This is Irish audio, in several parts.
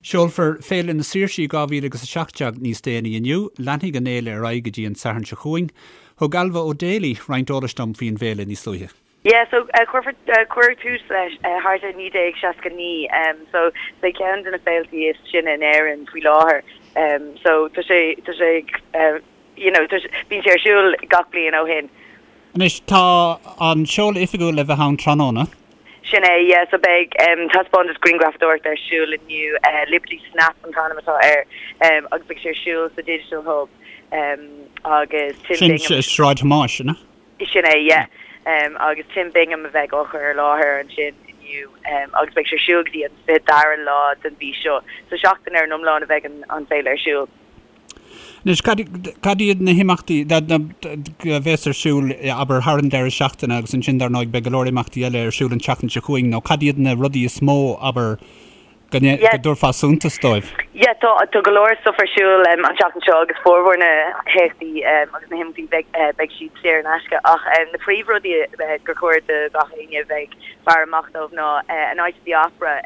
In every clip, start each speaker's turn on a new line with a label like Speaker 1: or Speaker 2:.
Speaker 1: Seolfar Féile na Saoirsí 2017 níos déanaí inniu. Leanfaidh an fhéile ar aghaidh go dtí an Satharn seo chugainn. Thug Ailbhe O'Daly roinnt eolais dom faoin bhféile níos luaithe.
Speaker 2: Yeah, so cuirfear, cuireadh tús leis thart ar 1969, so is é ceann de na féiltí is sine in Éirinn faoi láthair. So tá sé, tá sé, you know, tá sé, bíonn sé ar siúl gach bliain ó shin.
Speaker 1: Anois, tá an seoladh oifigiúil le bheith ann tráthnóna.
Speaker 2: Sin é, yeah, so beidh taispeántas grianghrafadóireachta ar siúl inniu, Liberty Snap an t-ainm atá air, agus beidh sé ar siúl sa Digital Hub agus
Speaker 1: Tim Sin Bingham. Sráid Thomáis, an
Speaker 2: ea? Sin é, yeah, agus Tim Bingham a bheidh á chur i láthair ansin inniu agus beidh sé ar siúl go dtí an 22ú lá den mhí seo, so seachtain ar an iomlán a bheidh an féile ar siúl.
Speaker 1: Anois, cad iad na himeachtaí a bheas ar siúl, abair, thar an deireadh seachtaine agus ansin, dar ndóigh, beidh go leor imeachtaí eile ar siúl an tseachtain seo chugainn, nó cad iad na rudaí is mó, abair, go dtabharfá suntas dóibh?
Speaker 2: Yeah, tá, tá go leor stuff ar siúl an tseachtain seo agus formhór na héachtaí agus na himeachtaí beidh, beidh siad saor in aisce ach na príomhrudaí gur chóir do gach éinne a bheith ag faire amach dóibh ná A Night at the Opera,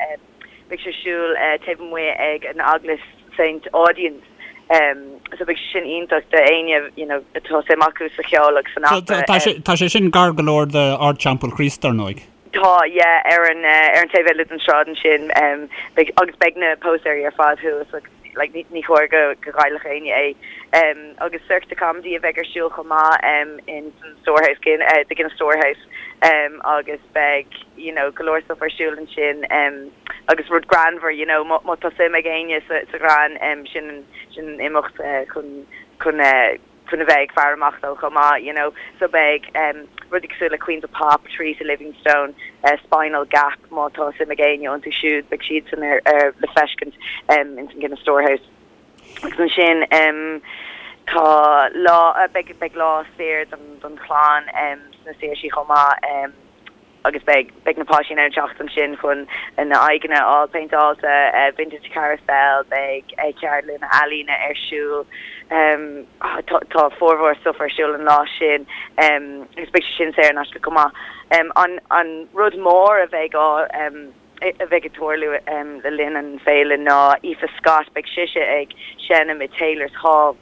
Speaker 2: Beidh sé ar siúl taobh amuigh ag an Eaglais St Audoen's so beidh sé sin iontach do éinne you know atá suim acu sa cheol agus san
Speaker 1: opera. Tá sé tá sé sin gar go leor d'Ardteampall Chríost dar ndóigh.
Speaker 2: Tá yeah ar an ar an taobh eile den sráid ansin beidh agus beidh na póstaeirí ar fad thuas agus like ní ní chóir go go gcaillfeadh éinne é. Agus Cirque de Comedy a bheidh ar siúl chomh maith in san Storehouse the Guinness Storehouse. agus beidh you know go leor stuff ar siúl ansin agus rud greannmhar you know má má tá suim ag éinne sa sa ghreann sin an sin an imeacht chun chun chun a bheith ag faire amach dó chomh maith you know so beidh rudaí cosúil le Queens of Pop, Teresa Livingstone, Spinal Gap má tá suim ag éinne iontu siúd beidh siadsan ar ar le feiscint in san Guinness Storehouse. Agus ansin tá lá, beidh, beidh lá saor don, don chlann sna Saoirsí chomh maith agus beidh, beidh na páistí in ann teacht ansin chun a n-aghaidheanna a fháil péinteáilte, vintage carousel, beidh ceardlanna ealaíne ar siúl, tá, tá formhór stuff ar siúl an lá sin agus beidh sé sin saor in aisce chomh maith. An, an rud mór a bheidh á. a bheidh ag tarlú le linn an féile ná Aoife Scott, beidh sise ag seinm i Taylor's Hall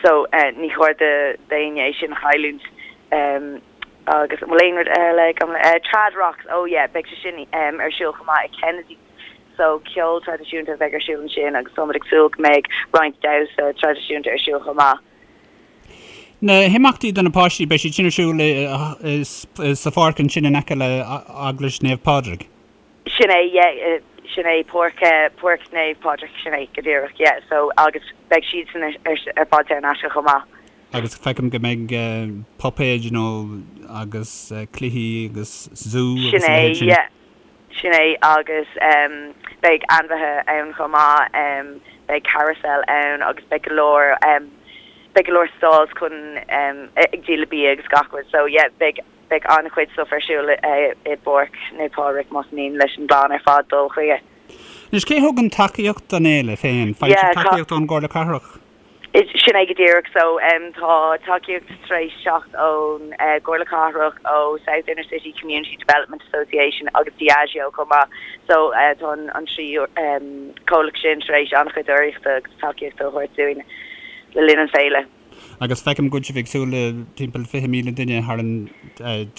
Speaker 2: so ní chóir d'éinne é sin a chailliúint. Agus an bhfuil aon rud eile agam? Trad Rocks, oh yeah, beidh sé sin ar siúl chomh maith i Kennedy's so ceol traidisiúnta a bheidh ar siúl ansin agus táimid ag súil go mbeidh roinnt damhsa traidisiúnta ar siúl chomh maith.
Speaker 1: Na himeachtaí do na páistí, beidh siad sin ar siúl sa pháirc ansin in aice le Eaglais Naomh Pádraig.
Speaker 2: Sin é, yeah, sin é, Páirc, Páirc Naomh Pádraig, sin é go díreach, yeah, so agus beidh siadsan ar fad saor in aisce chomh maith.
Speaker 1: Agus feicim go mbeidh puipéid nó agus cluichí agus zú
Speaker 2: agus a leithéid sin. Sin é, yeah. Sin é, agus beidh ainmhithe ann chomh maith, beidh carousel ann agus beidh go leor, beidh go leor stalls chun, ag díol bia agus gach rud. So yeah, beidh, beidh an-chuid stuff ar siúl i bPáirc Naomh Pádraig más mian leis an gclann ar fad dul chuige.
Speaker 1: Anois, cé thugann tacaíocht don fhéile féin? Faigheann sibh tacaíocht ón gComhairle Cathrach?
Speaker 2: Sin é go díreach. So tá tacaíocht tar éis teacht ón gComhairle Cathrach, ó South Inner City Community Development Association agus Diageo chomh maith. So tá an trí comhlacht sin tar éis an-chuid urraíochta agus tacaíochta a thabhairt dúinn le linn an féile.
Speaker 1: Agus feicim go bhfuil sibh ag súil le timpeall 20,000 duine thar an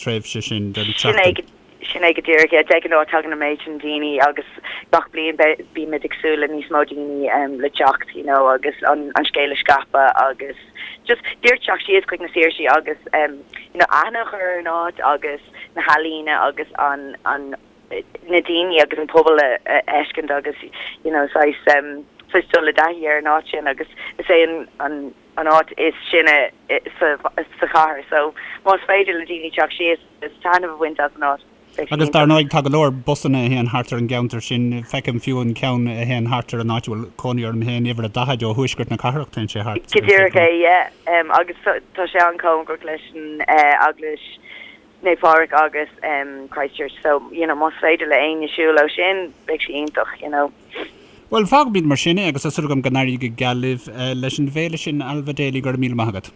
Speaker 1: tréimhse sin den tseachtain.
Speaker 2: Sin é go díreach, yeah. De ghnáth tagann an méid sin daoine agus gach bliain bímid ag súil le níos mó daoine le teacht you know agus an scéal a scaipeadh agus just díreach teacht síos chuig na Saoirsí agus you know aithne a chur ar an áit agus na healaíona agus an an na daoine agus an pobal a fheiscint agus you know saghas saghas dul i dtaithí ar an áit sin agus is é an an an áit is sine sa sa chathair so más féidir le daoine teacht síos Is taitneamh a bhaint as an áit.
Speaker 1: Beidh sé Agus dar ndóigh tá go leor busanna a théann thart ar an gceantar sin. Feicim fiú an ceann a théann thart ar an áit a bhfuil cónaí orm féin, uimhir a 40 ó thuaisceart na cathrach, téann sé thart
Speaker 2: Go díreach é, yeah. Agus tá sé an-chóngarach leis an Eaglais Naomh Pádraig agus Christ Church so, you know, más féidir le éinne siúl ó sin, beidh sé iontach, you know.
Speaker 1: Bhuel, fágfaimid mar sin é agus tá súil agam go n-éirí go geal libh leis an bhféile sin, Ailbhe Daly, go raibh míle maith agat.